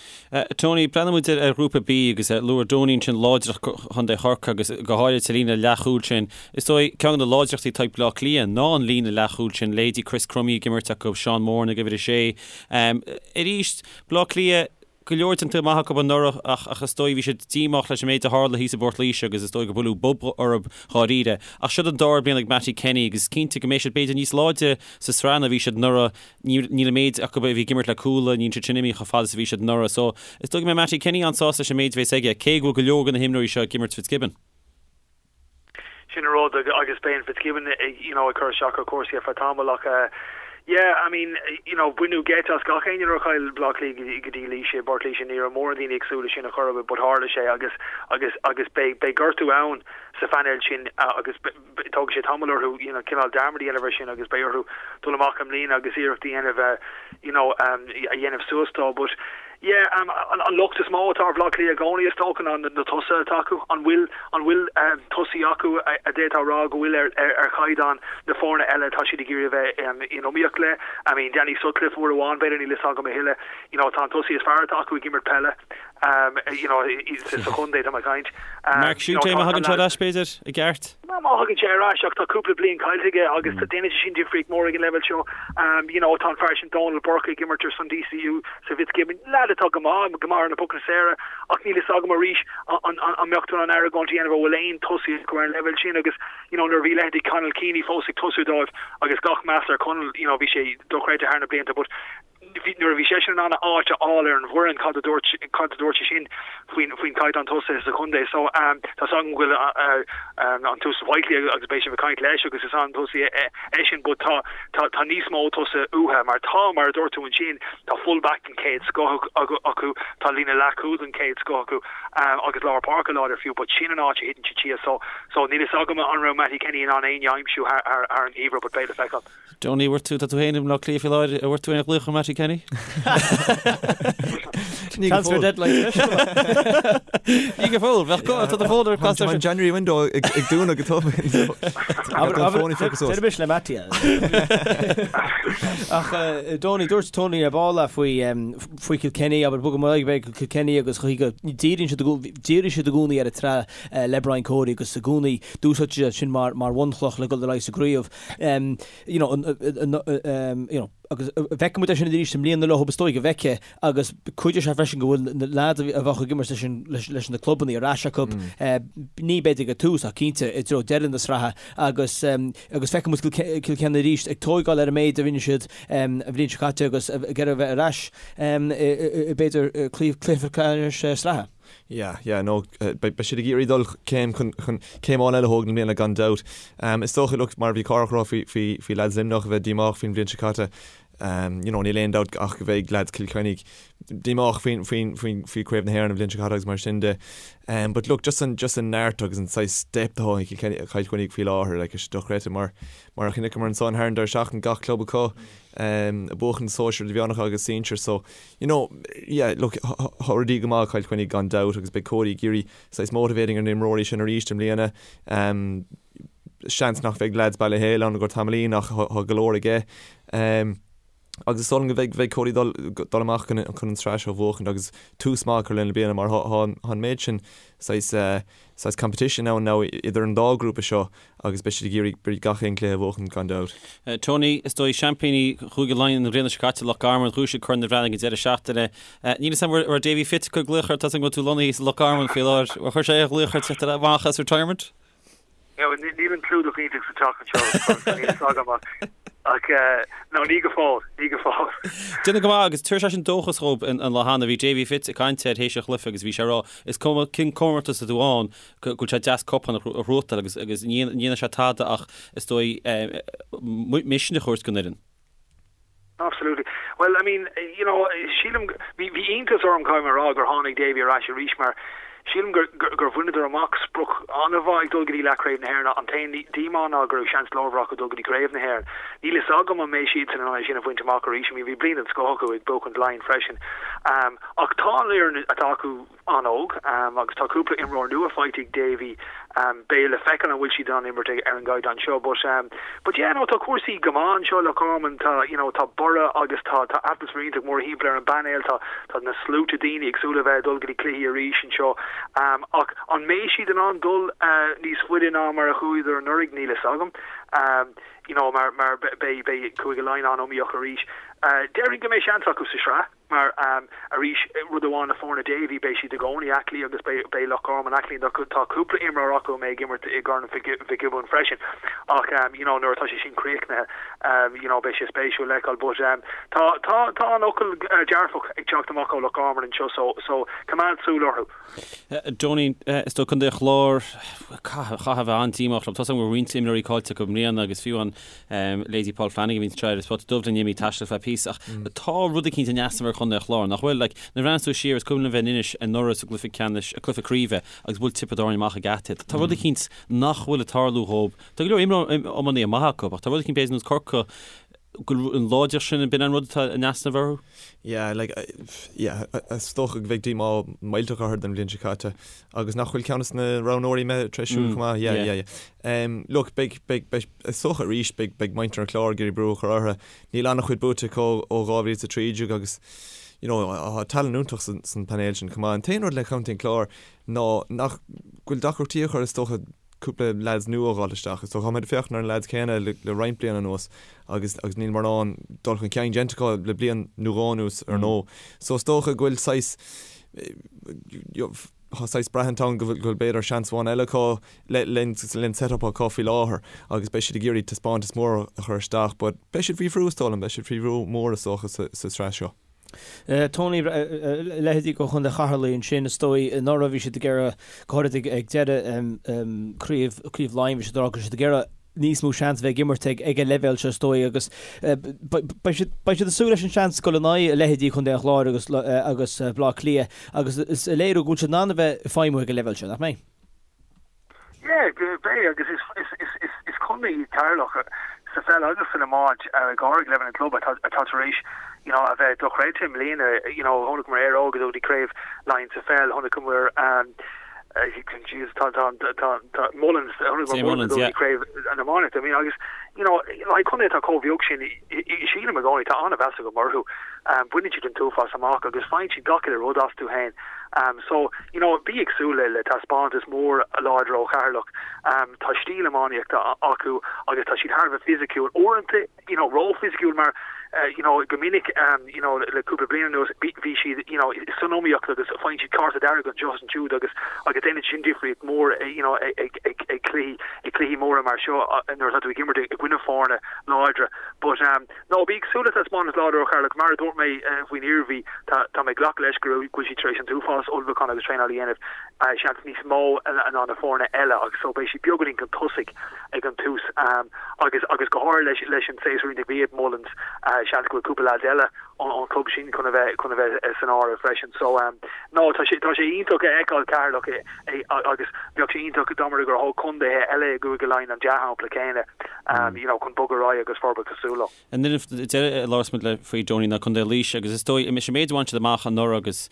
Tony, breathnaíonn muid ar Ghrúpa B agus luaigh Donie ansin láidreacht Chontae Chorcaí agus go háirid sa líne leathchúil sin. Is dóigh ceann de na láidreachtaí atá ag Bleá Cliath ná an líne leathchúil sin, leithéidí Chris Crummey ag imirt acu, Seán Moran ag uimhir a sé. Arís, Bleá Cliath, go leor déanta maith acu anuraidh ach ach is dóigh bhí siad díomách leis an méid a tharla thíos i bPort Laoise agus is dóigh gur buaileadh bob orthu dháiríre. Ach siod an dara bliain ag Mattie Kenny agus is cinnte go mbeidh siad b'fhéidir níos láidre sa sraith ná bhí siad anuraidh. Níl an méid acu a bhí ag imirt le Cuala, níl siad sin imithe chomh fada is a bhí siad anuraidh. So is dóigh go mbeidh Mattie Kenny an-sásta leis an méid a bhéas aige, cé go bhfuil go leor de na himreoirí seo ag imirt Fitzgibbon.
Sin an rud agus beidh an Fitzgibbon you know ag cur isteach ar chúrsaí ar feadh tamaill ach eh yeah I mean you know baineadh geit as gach éinne nuair a chaill Bleá Cliath go dtí Laois i bPort Laoise ní raibh mórán daoine ag súil leis sin a chor ar bith but tharla sé agus agus agus beidh beidh gortú ann sa phainéal sin agus tógfaidh sé tamall orthu you know cineál dearmad a dhéanamh ar sin agus beidh orthu dul amach i mbliana agus iarracht a dhéanamh you know a dhéanamh suas dó but Yeah, an locht is mó atá ar Bhaile Átha Cliath i gcónaí is dócha ná na tosaithe atá acu. An bhfuil an bhfuil tosaí acu a d'fhéadfá a rá go bhfuil ar ar chaighdeán na foirne eile atá siad ag iarraidh a bheith in iomaíocht le? I mean, Danny Sutcliffe uair amháin, b'fhéidir, níl fhios agam a thuilleadh. You know, tá an tosaí is fearr atá acu ag imirt peile, you know, sa chontae, tá mé ag caint.
Mark Schutte, má thagann sé ar ais, b'fhéidir, i gceart?
Má thagann sé ar ais ach tá cúpla bliain caillte aige agus déanann sé sin difríocht mór ag an leibhéal seo. You know, tá an fear sin Dónal Burke ag imirt ar son DCU sa Fitzgibbon, leaid atá go maith, go maith ar na pocanna saora ach níl fhios agam arís an mbeadh tú in ann argóint a dhéanamh an bhfuil aon tosaí acu ar an leibhéal sin agus you know nuair a bhí leithéidí Conal Keaney fós ag tosú dóibh agus gach meas ar Conal, you know, bhí sé dochreidte thar na blianta but nuair a bhí seisean in ann a áit a fháil ar an bhfoireann, cad a dúirt, cad a dúirt sé sin faoin, faoin chaighdeán tosaithe sa chontae? So, tá 's agam go bhfuil an tUasal Whitely agus beidh sibh ag caint leis agus is an-tosaí eisean but tá, tá, tá níos mó tosaithe uathu mar tá, mar a dúirt tú ansin, tá full back den chéad scoth acu, tá líne leathchúil den chéad scoth acu agus lár páirce láidir fiú but sin an áit a thiteann siad síos. So, so níl 'fhios agam an raibh Mattie Kenny in ann éinne a aimsiú thar, thar, thar an gheimhreadh but beidh le feiceáil.
Donie, bhfuair tú, tá tú féin i mBleá Cliath faoi láthair, an bhfuair tú aon ghlaoch ó Mattie Kenny?
Ní go
Transfer
fóill.
deadline special.
Ní go fóill, bheadh go, tá do fón ar
Tá an January window ag ag dúnadh go tobann. Abair, An fón ag feiceáil suas.
Déarfaidh le Mattie. Ach Donie, dúirt Tony ar ball faoi faoi Kilkenny, abair bogfaidh muid ar aghaidh go Kilkenny agus chaoi go díríonn siad i gcó- dhírigh siad i gcónaí ar an tsraith le Brian Cody agus i gcónaí d'úsáid siad sin mar mar bhunchloch le dul ar aghaidh sa gcraobh. you know, you know, agus feicfidh muid é sin arís i mbliana leo, is dóigh go bhfeicfidh, agus cuideoidh sé freisin go bhfuil na lads a bheadh ag imirt leis an, leis na clubanna ar ais acu, ní b'fhéidir ag tús ach cinnte i dtreo deireadh na sraithe agus, agus feicfidh muid Kilkenny arís ag tóigeáil ar an méid a rinne siad an bhliain seo caite agus ag iarraidh a bheith ar ais i b'fhéidir cluiche ceannais sraithe.
Yeah, yeah, no, beidh siad ag iarraidh dul céim chun, chun, céim amháin eile a thógaint i mbliana gan dabht. Is dócha, look, mar a bhí Cárthach ag rá faoi, faoi, faoi lads Luimneach a bheith díomách faoin bhliain seo caite, you know, níl aon dabht ach go mbeidh lads Chill Chainnigh díomách faoin, faoin, faoin, faoi Craobh na hÉireann an bhliain seo caite agus mar sin de. But look, just an, just an neart agus an saghas depth atá ag Cill Chainnigh faoi láthair, like, is dochreidte mar, mar a chonaiceamar ansan thar an deireadh seachtaine gach club acu, ag buachan sóisir idirmheánacha agus sinsir, so, You know, yeah, look, tá rudaí go maith ag Cill Chainnigh gan dabht agus beidh Cody ag iarraidh saghas motivating ar na imreoirí sin arís i mbliana. Seans nach bheidh lads Baile Héil ann i gcomhair tamaillín ach tá go leor aige. Agus is dóigh liom go mbeidh Cody dul dul amach chun chun an tsraith seo a bhuachaint agus tús maith a chur lena bliana mar tá an méid sin saghas saghas competition ann now idir an dá ghrúpa seo agus beidh siad ag iarraidh gach aon chluiche a bhuachan gan dabht.
Tony, is dóigh seaimpíní Chúige Laighean an bhliain seo caite, Loch Garman, ghnóthaigh siad Corn an Bhreathnaigh an deireadh seachtaine. Níl 'fhios a'm an raibh Davy Fitz ag cur glaoch ort, tá's agam go bhfuil tú lonnaithe sa Loch Garman faoi láthair. Ar chuir sé aon ghlaoch ort teacht amach as retirement?
Níl an clúdach iontach sa teach anseo, níl 'fhios agam ach. Ach no, ní go fóill, ní go fóill.
Déanamh go maith agus tabharfaidh sé sin dóchas dhóibh an lá cheana. Bhí Davy Fitz ag caint air théis an chluiche agus bhí sé ag rá is cuma cén comórtas atá tú ann go bhfuil sé deas cupán a ghnóthachtáil agus agus ní dhéanfaidh sé tada ach is dóigh misneach a thabhairt don fhoireann.
Absolutely. Well, I mean, you know, sílim, bhí bhí iontas orm caithfidh mé a rá gur tháinig Davy ar ais arís mar sílim gur gur gur bhaineadar amach sprioc an-mhaith ag dul go dtí leathchraobh na hÉireann. An t-aon díomá ná go raibh seans leormhar acu dul go dtí craobh na hÉireann. Níl fhios agam an mbeidh siadsan in ann é sin a bhaint amach arís. I mean, bhí bliain den scoth acu ag buachaint Laighean freisin. Ach tá an fhoireann atá acu an-óg agus tá cúpla imreoir nua faighte ag Davy. Beidh le feiceáil an bhfuil siad in ann imirt ar an gcaighdeán seo but but yeah no tá cúrsaí go maith anseo i Loch Garman tá you know tá borradh agus tá tá atmaisféar iontach mórthimpeall ar an bpainéal tá tá na sluaite daoine ag súil le bheith ag dul go dtí cluichí arís anseo ach an mbeidh siad in ann dul níos faide ná mar a chuadar anuraidh níl fhios agam you know mar mar beidh beidh Cúige Laighean an-iomaíoch arís. Déarfainn go mbeidh seans acu sa sraith. Mar, arís, rud amháin le foirne Davy, beidh siad i gcónaí aclaí agus beidh Loch Garman aclaí. Tá cúpla imreoir acu a mbeidh ag imirt i gCorn Mhic Giobúin freisin ach, you know, nuair atá sé sin críochnaithe, you know, beidh sé spéisiúil le feiceáil. But tá, tá, tá an fhocal dearfach ag teacht amach ó Loch Garman anseo so, so coimeád súil orthu.
Donie, is dóigh Contae an Chláir, caithfidh a bheith an-díomách leo. Tá a fhios agam go raibh roinnt imreoirí caillte acu i mbliana agus fiú an leithéidí Paul Flanagan a bhíonn anseo ar an Spota Dubh linn imithe ag taisteal feadh píosa ach tá rud eicínt in easnamh ar Chontae an Chláir, nach bhfuil? Like, nuair a bhreathnaíonn tú siar, is cuimhin liom bheith in Inis anuraidh sa gcluiche ceannais, cluiche craoibhe agus bhuail Tiobraid Árann amach ag geata. Tá rud eicínt nach bhfuil ag tarlú dhóib. Tá go leor imreoirí iománaithe maithe acu ach tá rud eicínt b'fhéidir ar nós Corcaigh go bhfuil an láidreacht sin, b'in an rud atá in easnamh orthu?
Yeah, like, yeah, is dócha go bheidh díomá millteach orthu don bhliain seo caite agus nach bhfuil ceann de na roghnóirí imithe tar éis siúl chomh maith, yeah, yeah, yeah. Um, look, beidh, beidh, beidh, is dócha arís, beidh, beidh muintir an Chláir ag iarraidh brú a chur orthu. Níl an-chuid buaite acu ó 2013 agus, you know, tá tallann iontach san, san painéal sin chomh maith. An t-aon rud le Contae an Chláir ná nach bhfuil deacrachtaí acu, is dócha, cúpla leaids nua a dh'fháil isteach. Is dócha, táimid ag féachaint ar na leaids céanna le roinnt bliana anuas agus agus níl mórán dul chun cinn déanta acu le bliain nó dhó anuas ar ndóigh. So is dócha go bhfuil saghas, tá saghas braithint ann go bhfuil go bhfuil b'fhéidir seans amháin eile acu le le len set-up acu faoi láthair agus beidh siad ag iarraidh taispeántas mór a chur isteach but beidh siad faoi bhrú is dóigh liom, beidh siad faoi bhrú mór is dócha sa sa tsraith seo.
Tony, leithéidí de Chontae Cheatharlaigh ansin, is dóigh, anuraidh bhí siad ag iarraidh, go háirid ag deireadh craobh, craobh Laighean, bhí siad ag rá go raibh siad ag iarraidh níos mó seans a bheith ag imirt ag an leibhéal seo is dóigh agus beidh siad, beidh siad ag súil leis an seans dul in aghaidh leithéidí Chontae an Chláir agus, agus Baile Átha Cliath agus is a léiriú go bhfuil siad in ann a bheith ag feidhmiú ag an leibhéal seo, nach mbeidh?
Yeah, beidh agus is contae iad Ceatharlach sa pheil agus san iomáint go háirithe ag leibhéal an chlub atá tar éis you know a bheith dochreidte i mbliana. You know chonaiceamar Éire Óg ag dul go dtí craobh Laighean sa pheil, chonaiceamar Jesus tá tá tá tá Mullins chonaiceamar Mullins ag dul go dtí craobh an iománaíocht. I mean agus you know like contae atá chomh beag sin sílim i gcónaí tá an-mheas agam orthu. Baineann siad an t-uafás amach agus faigheann siad gach uile rud astu féin. So, you know, bí ag súil le taispeántas mór láidir ó Cheatharlach. Tá stíl iománaíochta acu agus tá siad thar a bheith fisiciúil. Uaireanta, you know, ró-fhisiciúil mar, you know, go minic, you know, le cúpla bliain anuas, bhí siad, you know, san iomaíocht agus faigheann siad cárta dearg anseo is ansiúd agus agus déanann sin difríocht mór, you know, ag ag ag cluichí ag cluichí móra mar seo nuair atá tú ag imirt i gcoinne foirne láidre. But, No, bí ag súil le taispeántas láidir ó Cheatharlach. Mar a dúirt mé faoin Iarmhí, tá mé ag glacadh leis go bhfuil siad tar éis an t-uafás ullmhúchán agus traenáil a dhéanamh, seans níos mó ná na foirne eile agus so beidh siad beagáinín chun tosaigh ag an tús agus agus go háirithe leis leis an séasúr iontach a bhí ag Mullins, seans go bhfuil cúpla leads eile ón chlub sin chun a bheith chun a bheith san áireamh freisin. So no, tá sé tá sé iontach a fheiceáil Ceatharlach agus bheadh sé iontach dá mba rud gur thóg contaetha eile i gCúige Laighean an dea-shampla céanna you know, chun bogadh ar aghaidh
agus forbairt cosúil leo. An fhoireann deiridh a labhras muid le faoi Donie ná Contae Laoise agus is dóigh, is an méid a bhain siad amach anuraidh agus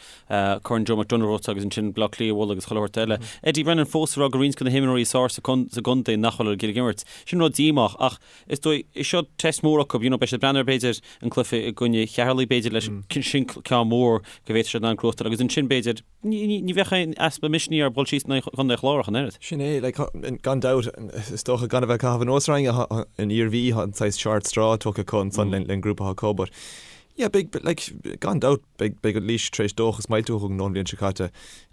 Corn Joe McDonagh a bhuaite agus ansin Bleá Cliath a bhualadh agus chuile shórt eile. Eddie Brennan fós ag rá go roinnt de na himreoirí is fearr sa gcontae nach bhfuil ag imirt. Sin rud díomách ach is dóigh, is seo test mór acu, you know, beidh siad ag breathnú ar b'fhéidir an cluiche i gcoinne Cheatharlaigh b'fhéidir leis sin ceann mór go bhféadfadh siad an gnóthachtáil agus ansin b'fhéidir Ní bheadh aon easpa misnigh orthu dul síos in aghaidh Chontae an Chláir ach an oiread.
Sin é, like, gan dabht, is dócha gan a bheith ag caitheamh anuas ar éinne, an Iarmhí, tá an saghas short straw tugtha acu ansan len grúpa atá acu, but yeah, beidh, like, gan dabht, beidh, beidh Laois tar éis dóchas millteach a thug ón bhliain seo caite.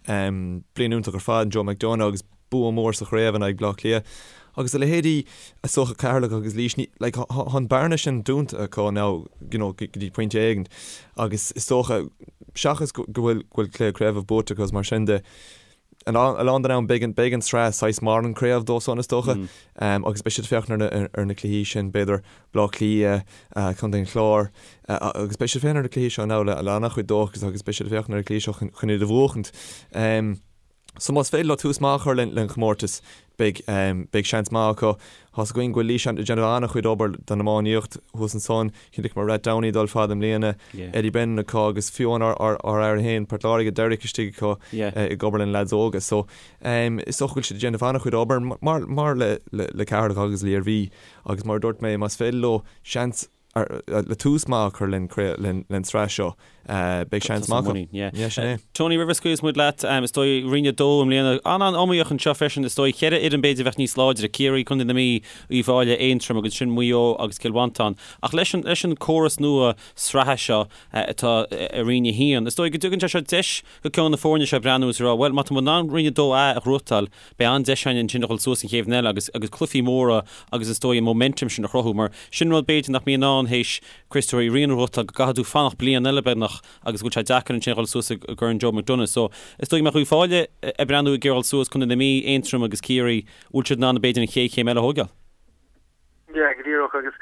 Bliain iontach ar fad, Joe McDonagh agus bua mór sa chraobh in aghaidh Bleá Cliath. Agus a leithéidí is dócha Ceatharlach agus Laois, ní, like, tá an bearna sin dúnta acu now, you know, go dtí pointe éigin agus is dócha, seachas go bhfuil, go bhfuil cluiche craoibhe buaite acu agus mar sin de, a lán den am beidh an, beidh an tsraith saghas mar an craobh dóibh san is dócha agus beidh siad ag féachaint ar na, ar na cluichí sin, b'fhéidir Baile Átha Cliath, Contae an Chláir agus beidh siad ag féachaint ar na cluichí seo now le, le an-chuid dóchas agus beidh siad ag féachaint ar na cluichí seo chun, chun iad a bhuachaint. So más féidir leo tús maith a chur len chomórtas, beidh, beidh seans maith acu. Tá's againn go bhfuil Laois ag déanamh an-chuid obair don iománaíocht thuas ansan. Chonaiceamar Rathdowney ag dul fada i mbliana, Eddie Brennan acu agus fiú amháin ár, ár, ár fhear féin, Port Láirge, Derek istigh acu ag obair lena leaids óga. So is dócha go bhfuil siad ag déanamh an-chuid obair mar, mar le, le, le Ceatharlach agus le hIarmhí agus mar a dúirt mé, más féidir leo seans le tús maith a chur len tsraith seo, beidh seans maith acu. Yeah, sin
é. Tony, roimh a scaoilfeas muid leat, is dóigh Roinn 2 i mbliana, an-an-iomaíoch anseo freisin, is dóigh, cheithre fhoireann b'fhéidir a bheadh níos láidre, Ciarraí, Contae na Mí, Uíbh Fhailí, Aontroim agus ansin Maigh Eo agus Cill Mhantáin. Ach leis an, leis an córas nua sraithe seo atá i Roinn 1, is dóigh go dtugann sé seo deis go ceann de na foirne seo breathnú is a rá, bhuel, má tá muid in ann Roinn 2A a ghnóthachtáil, Beidh an-deis againn ansin a dhul suas an chéad bhliain eile agus agus cluichí móra agus is dóigh an momentum sin a chruthú mar sin rud b'fhéidir nach mbíonn ann théis Craobh Uí Riain a ghnóthachtáil go gcaithfidh tú fanacht bliain eile beagnach agus go bhfuil sé deacair ansin a dhul suas i gCorn Joe McDonagh. So is dóigh go mbeadh Uíbh Fhailí ag breathnú ag iarraidh dhul suas, Contae na Mí, Aontroim agus Ciarraí, bhfuil siad in ann b'fhéidir an chéad chéim eile a thógáil?
Yeah, go díreach agus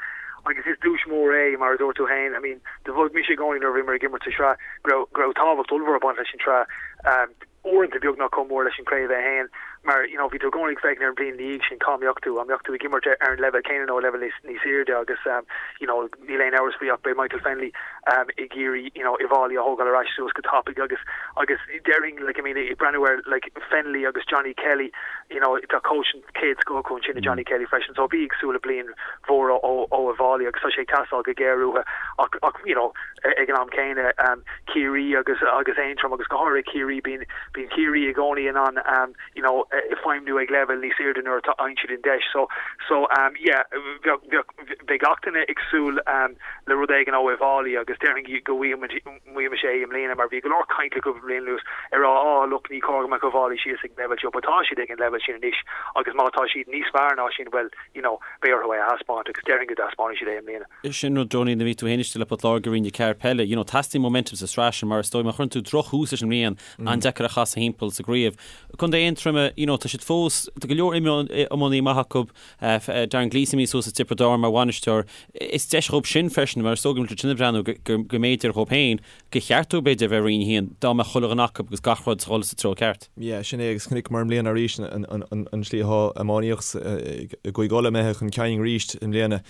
agus is duais mór é mar a dúirt tú féin. I mean, do mhothaigh mise i gcónaí nuair a bhíomar ag imirt sa sraith go raibh go raibh tábhacht ollmhór ag baint leis an tsraith. Um, uaireanta beagnach chomh mór leis an craobh é féin mar you know bhí tú i gcónaí ag féachaint ar an bhliain ina dhiaidh sin cá mbeadh tú, an mbeadh tú ag imirt ar an leibhéal céanna nó leibhéal níos níos airde agus um, you know níl aon amhras faoi ach beidh Michael Fennelly um, ag iarraidh you know Uíbh Fhailí a thógáil ar ais suas go tapaidh agus agus déarfainn like I mean ag breathnú ar like Fennelly agus Johnny Kelly you know tá coach chéad scoth acu ansin i Johnny Kelly freisin so bí ag súil le bliain mhór ó Uíbh Fhailí agus tá sé ag teastáil go géar uathu ach ach you know ag an am céanna um, Ciarraí agus agus Aontroim agus go háirithe Ciarraí bíonn bíonn Ciarraí i gcónaí in ann um, you know feidhmiú ag leibhéal níos airde nuair atá faigheann siad an deis so so um, yeah bheadh bheadh bheadh gach duine ag súil um, le rud éigin ó Uíbh Fhailí agus déarfainn go bhfaighimid bhfaighimid é i mbliana mar bhí go leor caint le cúpla bliain anuas ag rá oh look ní cóir go mbeadh Uíbh Fhailí síos ag an leibhéal seo but tá siad ag an leibhéal sin anois agus má tá siad níos fearr ná sin bhuel you know beidh orthu é a thaispeáint agus déarfainn go dtaispeánfaidh siad é i mbliana.
Sin rud Donie nuair a bhí tú féin istigh le Port Láirge i Roinn 4 peile, you know teastaíonn momentum sa sraith sin mar is dóigh má chuireann tú droch-thús leis an mbliain an-deacair a chasadh thimpeall sa gcraobh. Contae Aontroma, you know tá siad fós, tá go leor iománaí maith acu, Darren Gleeson imithe suas as Tiobraid Árann mar bhainisteoir. Is deis dhóibh sin freisin mar is dóigh go bhfuil siad sin ag breathnú go mb'fhéidir dhóibh féin, gur cheart dóibh b'fhéidir a bheith i Roinn 1 dá mbeadh chuile dhuine acu agus gach rud ag dul sa treo ceart.
Yeah, sin é agus chonaiceamar i mbliana arís an slí atá iománaíocht i gCúige Uladh imithe chun cinn arís i mbliana.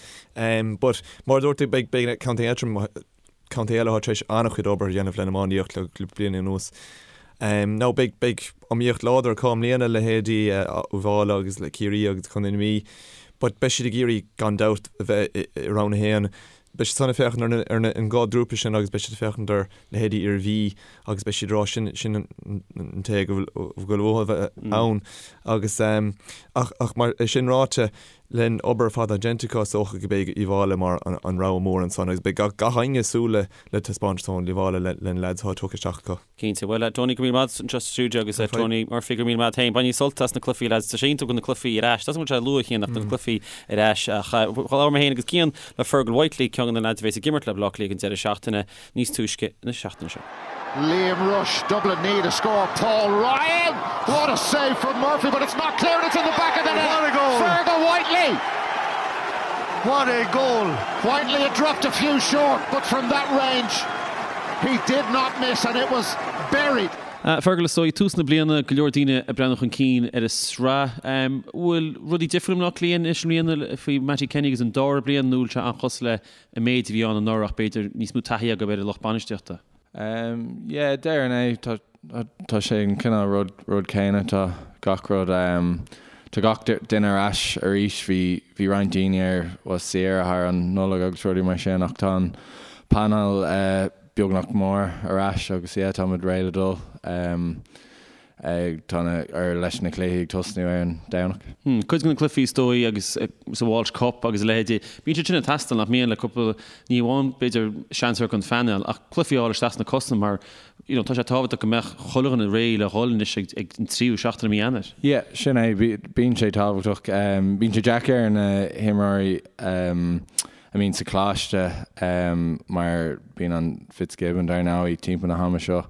But mar a dúirt tú beidh Contae Aontroim, contae eile atá tar éis an-chuid obair a dhéanamh lena iománaíocht le bliana anuas. Now beidh beidh iomaíocht láidir acu i mbliana, leithéidí Uíbh Fhailí agus le Ciarraí agus Contae na Mí, but beidh siad ag iarraidh gan dabht a bheith i Roinn 1. Beidh siad san ag féachaint ar na ar na an dhá ghrúpa sin agus beidh siad ag féachaint ar leithéidí Iarmhí agus beidh siad ag rá sin sin an té go bhfuil go bhfuil uathu a bheith ann agus ach ach mar é sin ráite Len obair ar fad atá déanta acu, is dócha go mbeidh Uíbh Fhailí mar an rogha mór ansan agus beidh gach éinne ag súil le taispeántas ón Uíbh Fhailí le na leaids atá tugtha isteach acu.
Cinnte. Bhuel, Tony, go raibh míle maith agat anseo sa stiúideo agus Tony Murphy, go raibh míle maith agat féin. Bainigí sult as na cluichí, lads. Tá sé iontach go bhfuil na cluichí ar ais. Tá sé luath cheana ach tá na cluichí ar ais. Ach labhair mé féin agus Cian le Fergal Whitely, ceann de na leaids a bheas ag imirt le Baile Átha Cliath an deireadh seachtaine. níos túisce na seachtaine seo.
Liam Rushe, Dublin need a score. Paul Ryan! What a save from Murphy, but it's not clear and it's in the back of the net.
What a goal!
Fergal Whitely!
What a goal!
Whitely had dropped a few short, but from that range he did not miss and it was buried.
Fergal, is dóigh, tús na bliana, go leor daoine ag breathnú chun cinn ar an sraith. Bhfuil rudaí difriúil i mBleá Cliath anois i mbliana faoi Mattie Kenny agus an dara bliain nó bhfuil sé an-chosúil le an méid a bhí ann anuraidh ach b'fhéidir níos mó taithí agaibh ar an lucht bainistíochta?
Yeah, déarfainn é. Tá, tá sé an cineál rud, rud céanna. Tá gach rud, tá gach duine ar ais arís. Bhí, bhí roinnt daoine ar, bhuel, saoire thar an Nollaig agus rudaí mar sin ach tá an panel beagnach mór ar ais agus yeah, táimid réidh le dul. Tá na, ar leis na cluichí ag tosnú ar an Domhnach.
Cuid de na cluichí is dóigh agus sa Walsh Cup agus a leithéidí, bíonn siad sin ag teastáil nach mbíonn le cúpla, ní amháin b'fhéidir seans ar an phainéal ach cluichí a fháil isteach sna cosa mar you know tá sé tábhachtach go mbeadh chuile dhuine réidh le dhul anois ag ag an tríú seachtain i mí Eanáir.
Yeah, sin é, bíonn sé tábhachtach. Bíonn sé deacair ar na himreoirí a mbíonn sa choláiste mar bíonn an Fitzgibbon dar ndóigh timpeall na hama seo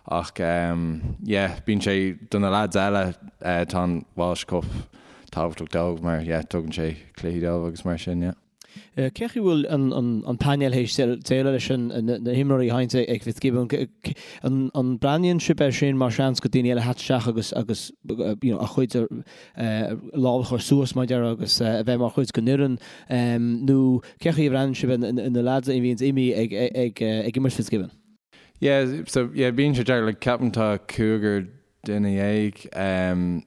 Ach yeah, bíonn sé, do na lads eile, tá an Walsh Cup tábhachtach dóibh mar yeah, tugann sé cluichí dóibh agus mar sin, yeah.
Cé chaoi bhfuil an painéal théis déileáil leis na himreoirí a thagann ag Fitzgibbon? An mbreathnaíonn sibh air sin mar seans go daoine eile a theacht isteach agus agus you know a chuid lámh a chur suas mar a déarfá agus a bheith mar chuid den fhoireann nó cé chaoi a bhreathnaíonn sibh ar na lads a bhíonns imithe ag ag imirt Fitzgibbon?
Yeah, so yeah, bíonn sé deacair, like ceapaim tá cúigear duine dhéag um,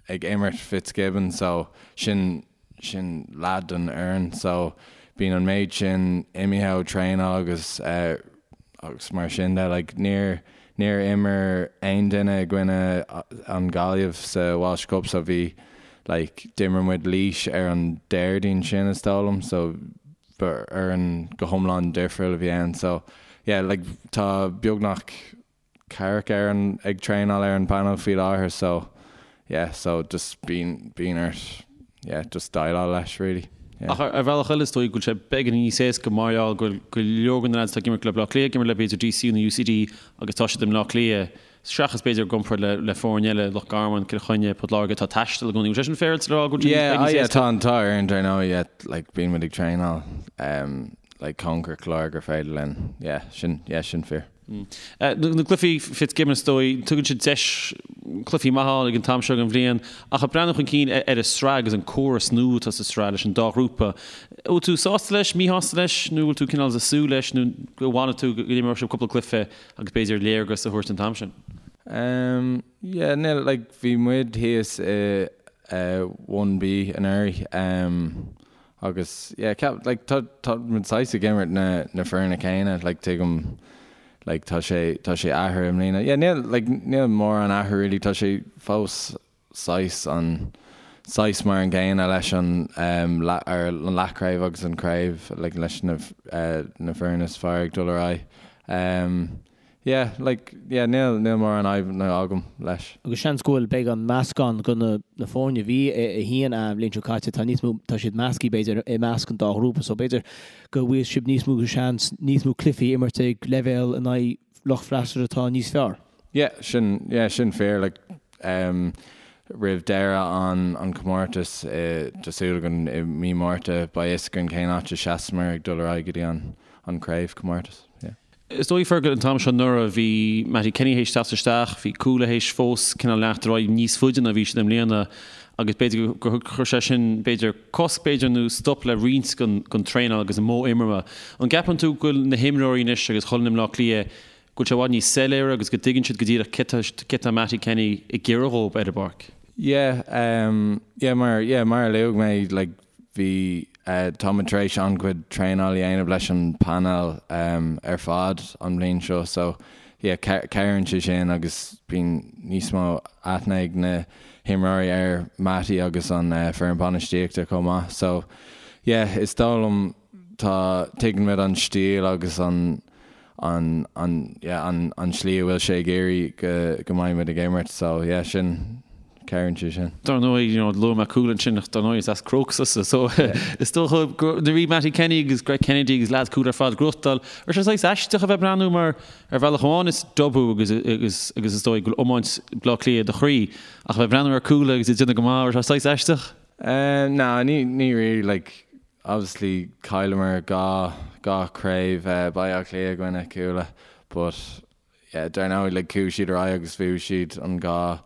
ag imirt Fitzgibbon so sin sin leath den fhoireann so bíonn an méid sin imithe ó traenáil agus uh, agus mar sin de like níor níor imir aon duine i gcoinne an Gaillimh sa Walsh Cup so bhí like d'imir muid Laois ar an Déardaoin sin is dóigh liom so ba fhoireann go hiomlán difriúil a bhí ann so yeah like tá beagnach ceathracha ar an ag traenáil ar an panel faoi láthair so yeah so just bíonn bíonn ort yeah just déileáil leis really
yeah. Ach ar bhealach eile is dóigh go bhfuil sé beagán níos éasca mar gheall go bhfuil go leor de na lads atá ag imirt le Bleá Cliath ag imirt le b'fhéidir DCU nó UCD agus tá siad i mBleá Cliath Seachas b'fhéidir i gcomparáid le le foirne eile, Loch Garman, Cill Chainnigh, Port Láirge, atá ag taisteal i gcónaí. Bhfuil sé sin féaráilte le rá go bhfuil sé
Yeah, níos yeah, éasca? tá an t-ádh orainn dar ndóigh, yeah, like bíonn muid ag traenáil um, like cóngarach go leor gur féidir linn, yeah, sin, yeah, sin fíor.
Na cluichí Fitzgibbon is dóigh, tugann siad deis cluichí maith a fháil ag an t-am seo den bhliain, ach ag breathnú chun cinn ar an sraith agus an córas nua atá sa sraith leis an dá ghrúpa, bhfuil tú sásta leis, míshásta leis, nó bhfuil tú cineál ag súil leis nó go bhfanfaidh tú go n-imreoidh sibh cúpla cluiche Agus b'fhéidir léargas a thabhairt an t-am sin.
Ehm yeah níl like bhí muid thíos i eh one B anuraidh ehm agus yeah ceap like tá tá muid saghas ag imirt na na foirne céanna like tuigim like tá sé tá sé athraithe i mbliana yeah níl like níl mórán athrú really tá sé fós saghas an saghas mar an gcéanna leis an ar an leathchraobh agus an craobh like leis na na foirne is fearr ag dul ar aghaidh. Yeah like yeah níl níl mórán fadhbanna agam leis.
Agus seans go bhfuil beidh an meascán de na na foirne a bhí i 1A an bhliain seo caite tá níos mó tá siad measctha b'fhéidir i measc an dá ghrúpa so b'fhéidir go bhfuil sibh níos mó seans níos mó cluichí a imirt ag leibhéal in aghaidh lucht freastail atá níos fearr.
Yeah, sin, yeah, sin fíor, like, em, roimh deireadh an, an chomórtais, i, tá súil againn i mí Márta, beidh fhios againn cén áit a seasamar ag dul ar aghaidh go dtí an, an craobhchomórtas, yeah.
Is dóigh, Fergal, an t-am seo anuraidh, bhí Mattie Kenny théis teacht isteach, bhí Cuala théis fós cineál leanacht ar aghaidh níos faide ná bhí siad i mbliana agus b'fhéidir gur chuir sé sin, b'fhéidir, cosc, b'fhéidir, nó stop le roinnt den, den traenáil agus an modh imeartha. An gceapann tú go bhfuil na himreoirí anois agus chuile dhuine i mBleá Cliath go bhfuil sé i bhfad níos soiléire agus go dtuigeann siad go díreach cé tá Mattie Kenny ag iarraidh dhóibh ar an bpáirc.
Yeah, um, yeah, mar, yeah, mar a luaigh mé, like, bhí, eh, tá muid tar éis an-chuid traenáil a dhéanamh leis an painéal, um, ar fad an bhliain seo, so, yeah, cabhraíonn sé sin agus bíonn níos mó aithne ag na himreoirí ar Mattie agus an, eh, foireann bainistíochta chomh maith, so, yeah, is dóigh liom tá, tuigeann muid an stíl agus an, an, an, yeah, an, an tslí a bhfuil sé ag iarraidh go, go mbeidh muid ag imirt so yeah, sin, cabhraíonn sé sin.
Dar ndóigh, you know, luaigh mé Cuala ansin ach dar ndóigh is as Crokes tusa so is dócha go, nuair a bhí Mattie Kenny agus Greg Kennedy agus lads Cuala ar fad ag gnóthachtáil, raibh sé saghas aisteach a bheith ag breathnú mar ar bhealach amháin is Dub thú agus, agus, agus is dóigh go bhfuil iomáint Bleá Cliath i do chroí ach a bheith ag breathnú ar Cuala agus iad ag déanamh go maith, raibh sé saghas aisteach?
Uh, no, ní, ní really, like, Obviously chailleamar 2 2 craobh Baile Átha Cliath i gcoinne Cuala but yeah dar ndóigh like chuaigh siad ar aghaidh agus bhuaigh siad an 2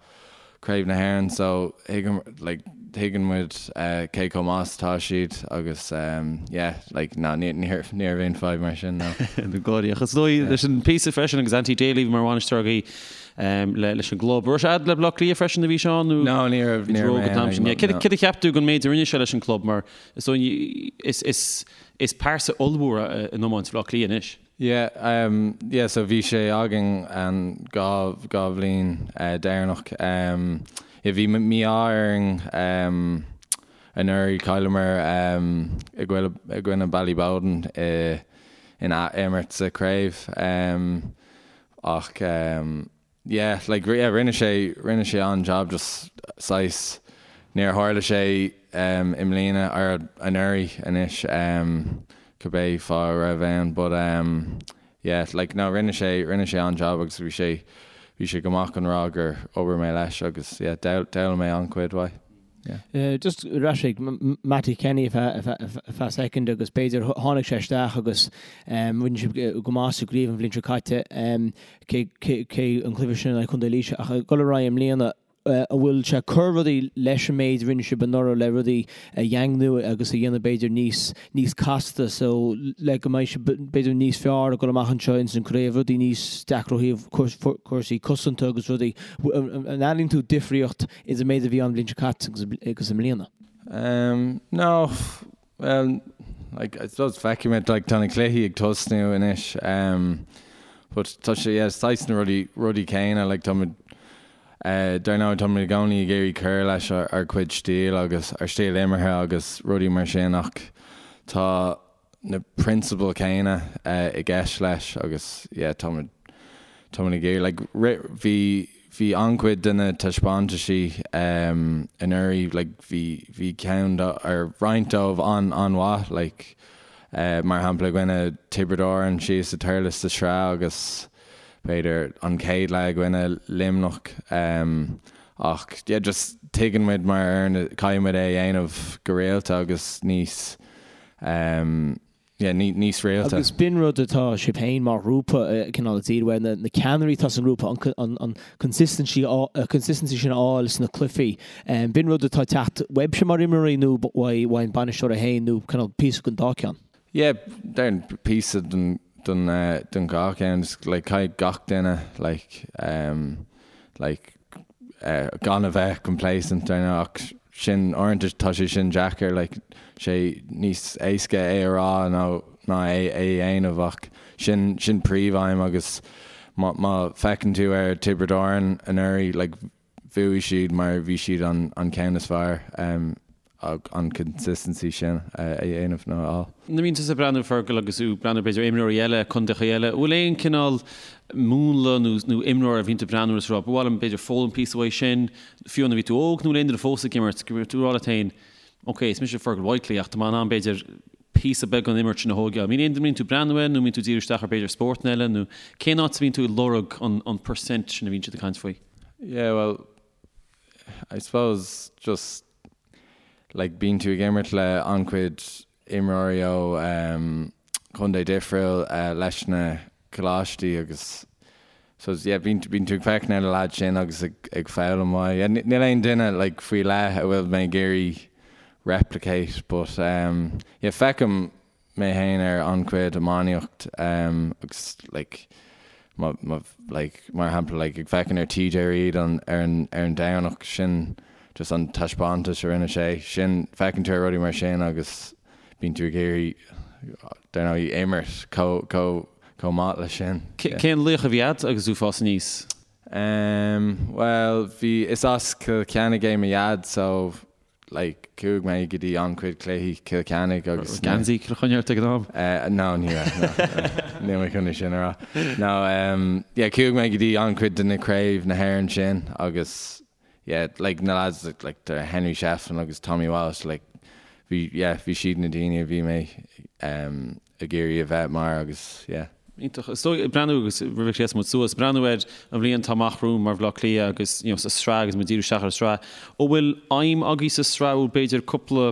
craobh na hÉireann so thuigim like tuigeann muid cé chomh maith is atá siad agus yeah like ná ní ní ní raibh aon fadhb mar sin no.
Na gáirí ach is dóigh leis an píosa freisin agus Anthony Daly mar bhainisteoir agaibh leis an gclub. Raibh sé a'd le Bleá Cliath freisin a bhí Seán
nó No ní raibh ní raibh mé
ann ag an Céard a cheap tú den méid a rinne sé leis an gclub mar Is dóigh, is pearsa ollmhór in iomáint Bhaile Átha Cliath anois.
Yeah, um, yeah, so bhí sé againn an dá, dá bhliain eh, deireanach. Um, yeah, bhí mí-ádh orainn um, anuraidh chailleamar um, i gcoinne, i gcoinne Ballyboden i, in ath-imirt sa chraobh. Um, ach um, Yeah, like, yeah, rinne sé, rinne sé an-jab just saghas, níor tharla sé um, i mbliana, or anuraidh anois, um, cibé fáth a raibh ann, but um, yeah, like, no, rinne sé, rinne sé an-jab agus bhí sé, bhí sé go maith chun rá gur obair mé leis agus yeah, d'fhoghlaim mé an-chuid uaidh.
Just ar ais ag Mattie Kenny ar feadh soicind agus b'fhéidir tháinig sé isteach agus rinne sibh go maith sa gcraobh an bhliain seo caite, cé an cluiche sin in aghaidh Chontae Laoise ach ag dul ar aghaidh i mbliana, an bhfuil sé ag cur rudaí leis an méid a rinne sibh anuraidh le rudaí a dhaingniú agus a dhéanamh b'fhéidir níos níos casta so le go mbeidh sibh b'fhéidir níos fearr ag dul amach anseo ins an craobh, rudaí níos deacra ó thaobh cúrsaí cosanta agus rudaí. An airíonn tú difríocht Idir an méid a bhí ann an bhliain seo caite agus i mbliana?
Um, no, well, like, I suppose feicfimid, like, tá na cluichí ag tosnú anois, um, but tá sé, yeah, saghas na rudaí, rudaí céanna, like, táimid, eh, dar ndóigh, táimid i gcónaí ag iarraidh cur leis ár, ár gcuid stíl agus ár stíl imeartha agus rudaí mar sin ach tá, na prionsabail céanna i gceist leis agus yeah táimid táimid ag iarraidh like bhí bhí an-chuid de na taispeántaisí anuraidh like bhí bhí ceann de or roinnt dóibh an an-mhaith like mar shampla i gcoinne Tiobraid Árann síos i Thurles sa tsraith agus b'fhéidir an chéad leath i gcoinne Luimneach ach yeah just tuigeann muid mar fhoireann caithfidh muid é a dhéanamh go rialta agus níos yeah, níos rialta.
Agus b'in rud atá sibh féin mar ghrúpa cineál ag díriú air, na ceannairí atá sa ngrúpa, an consistency consistency sin a fháil sna cluichí. B'in rud atá ag teacht uaibhse mar imreoirí nó uaidh an bainisteoir é féin nó cineál píosa den dá ceann?
Yeah, déarfainn píosa den den den dhá cheann, just like caithfidh gach duine like like gan a bheith complacent dar ndóigh ach sin uaireanta tá sé sin deacair like sé níos éasca é a rá nó ná é a dhéanamh ach sin sin príomhaidhm agus má má feiceann tú ar Tiobraid Árann anuraidh like bhuaigh siad mar bhí siad an an ceann is fearr an consistency sin a dhéanamh nó a fháil.
Nuair a bhíonn tusa ag breathnú, Fergal, agus tú ag breathnú b'fhéidir ar imreoirí eile, contaetha eile, an bhfuil aon cineál múnla nó nó imreoir a bhíonn tú ag breathnú agus ag rá, ba mhaith liom b'fhéidir foghlaim píosa uaidh sin, fiú nuair a bhí tú óg nó aon duine fós ag imirt, go raibh tú ag rá leat féin, ok, is mise Fergal Whitely ach tá mé in ann b'fhéidir píosa beag den imirt sin a thógáil. An mbíonn aon duine a mbíonn tú ag breathnú air nó an mbíonn tú ag díriú isteach ar b'fhéidir spórtanna eile nó cén áit a bhíonn tú ag lorg an an percent sin a bhíonn siad ag caint faoi?
Yeah, well, I suppose just like bíonn tú ag imirt le an-chuid imreoirí ó um, contae difriúil uh, leis na coláistí agus so yeah, bíonn bíonn tú ag féachaint ar na lads sin agus ag, ag foghlaim uaidh. Yeah, níl aon duine like, faoi leith a bhfuil mé ag iarraidh replicate but um, yeah, feicim mé féin ar an-chuid iománaíocht agus like má má like mar shampla like ag féachaint ar TJ Reid an ar an ar an Domhnach sin just an taispeántas a rinne sé sin feiceann tú ar rudaí mar sin agus bíonn tú ag iarraidh dar ndóigh imirt chomh chomh chomh maith leis sin.
Cén laoch a bhí agat agus tú ag fás aníos?
Em bhuel bhí is as Cill Chainnigh é mo dhaid so like chuaigh mé go dtí an-chuid cluichí Cill Chainnigh agus
na. Geansaí Chill Chainnigh ort ag an
am? Eh no ní raibh no níl mé chun é sin a rá. No em yeah chuaigh mé go dtí an-chuid de na craobh na hÉireann sin agus yeah like na lads like the Henry Shefflin agus Tommy Walsh like bhí yeah bhí siad na daoine a bhí mé em ag iarraidh a bheith mar agus yeah.
Iontach. Is dóigh, breathnú agus roimh a ghléasann muid suas, breathnú ar an bhliain atá amach romhainn mar Bhaile Átha Cliath agus you know sa sraith agus muid díriú isteach ar an sraith. An bhfuil aidhm agaibh sa sraith, bhfuil b'fhéidir cúpla,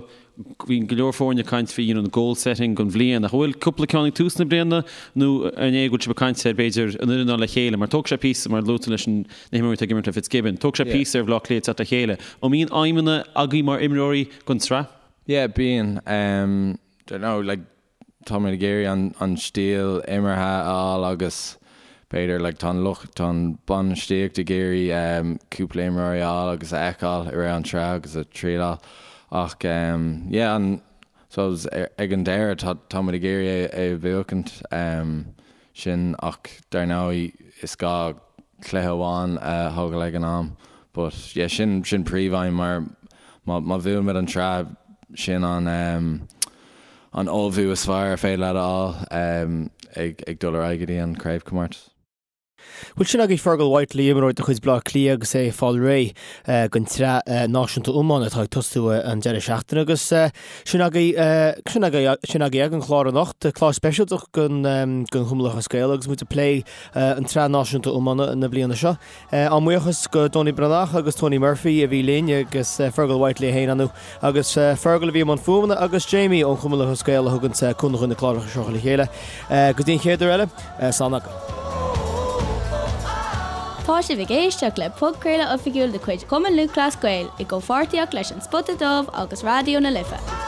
bhí go leor foirne ag caint faoi you know na goal setting don bhliain ach an bhfuil cúpla ceann ag tús na bliana nó an é go bhfuil sibh ag caint ar b'fhéidir an fhoireann a fháil le chéile mar tógfaidh sé píosa mar luaigh tú leis an na himreoirí atá ag imirt le Fitzgibbon, tógfaidh sé píosa ar Bhaile Átha Cliath teacht le chéile. An mbíonn aidhmeanna agaibh mar imreoirí don tsraith?
Yeah bíonn. Um, don't know like táimid ag iarraidh an stíl imeartha a fháil agus b'fhéidir like tá an lucht, tá an bainistíocht ag iarraidh cúpla imreoirí a fháil agus a fheiceáil i rith an tsraith agus a trialáil ach yeah an suppose ag an deireadh tá táimid ag iarraidh é a bhuachaint. Sin ach dar ndóigh is gá cluiche amháin a thógáil ag an am. But yeah sin sin príomhaidhm mar má má bhuann muid an tsraith sin an an ullmhú is fearr ar féidir leat a fháil ag ag dul ar aghaidh go dtí an craobhchomórtas.
Bhuel sin agaibh Fergal Whitely, imreoir de chuid Bleá Cliath agus é ag fáil réidh don tsraith náisiúnta iomána atá ag tosú an deireadh seachtaine agus sin agaibh sin agaibh sin agaibh ag an chlár anocht, clár speisialta den den Chumann Lúthchleas Gael agus muid ag plé an tsraith náisiúnta iomána na bliana seo. Ár mbuíochas go Donie Breathnach agus Tony Murphy a bhí linn agus Fergal Whitely é féin ann agus Fergal a bhí i mbun fuaimeanna agus Jamie ón Chumann Lúthchleas Gael a thugann cúnamh chun na cláracha seo le chéile. Go dtí an chéad uair eile, slán agaibh.
Tá sibh ag éisteacht le podchraoladh oifigiúil de chuid Chumann Lúthchleas Gael i gcomhpháirtíocht leis An Spota Dubh agus Raidió na Life.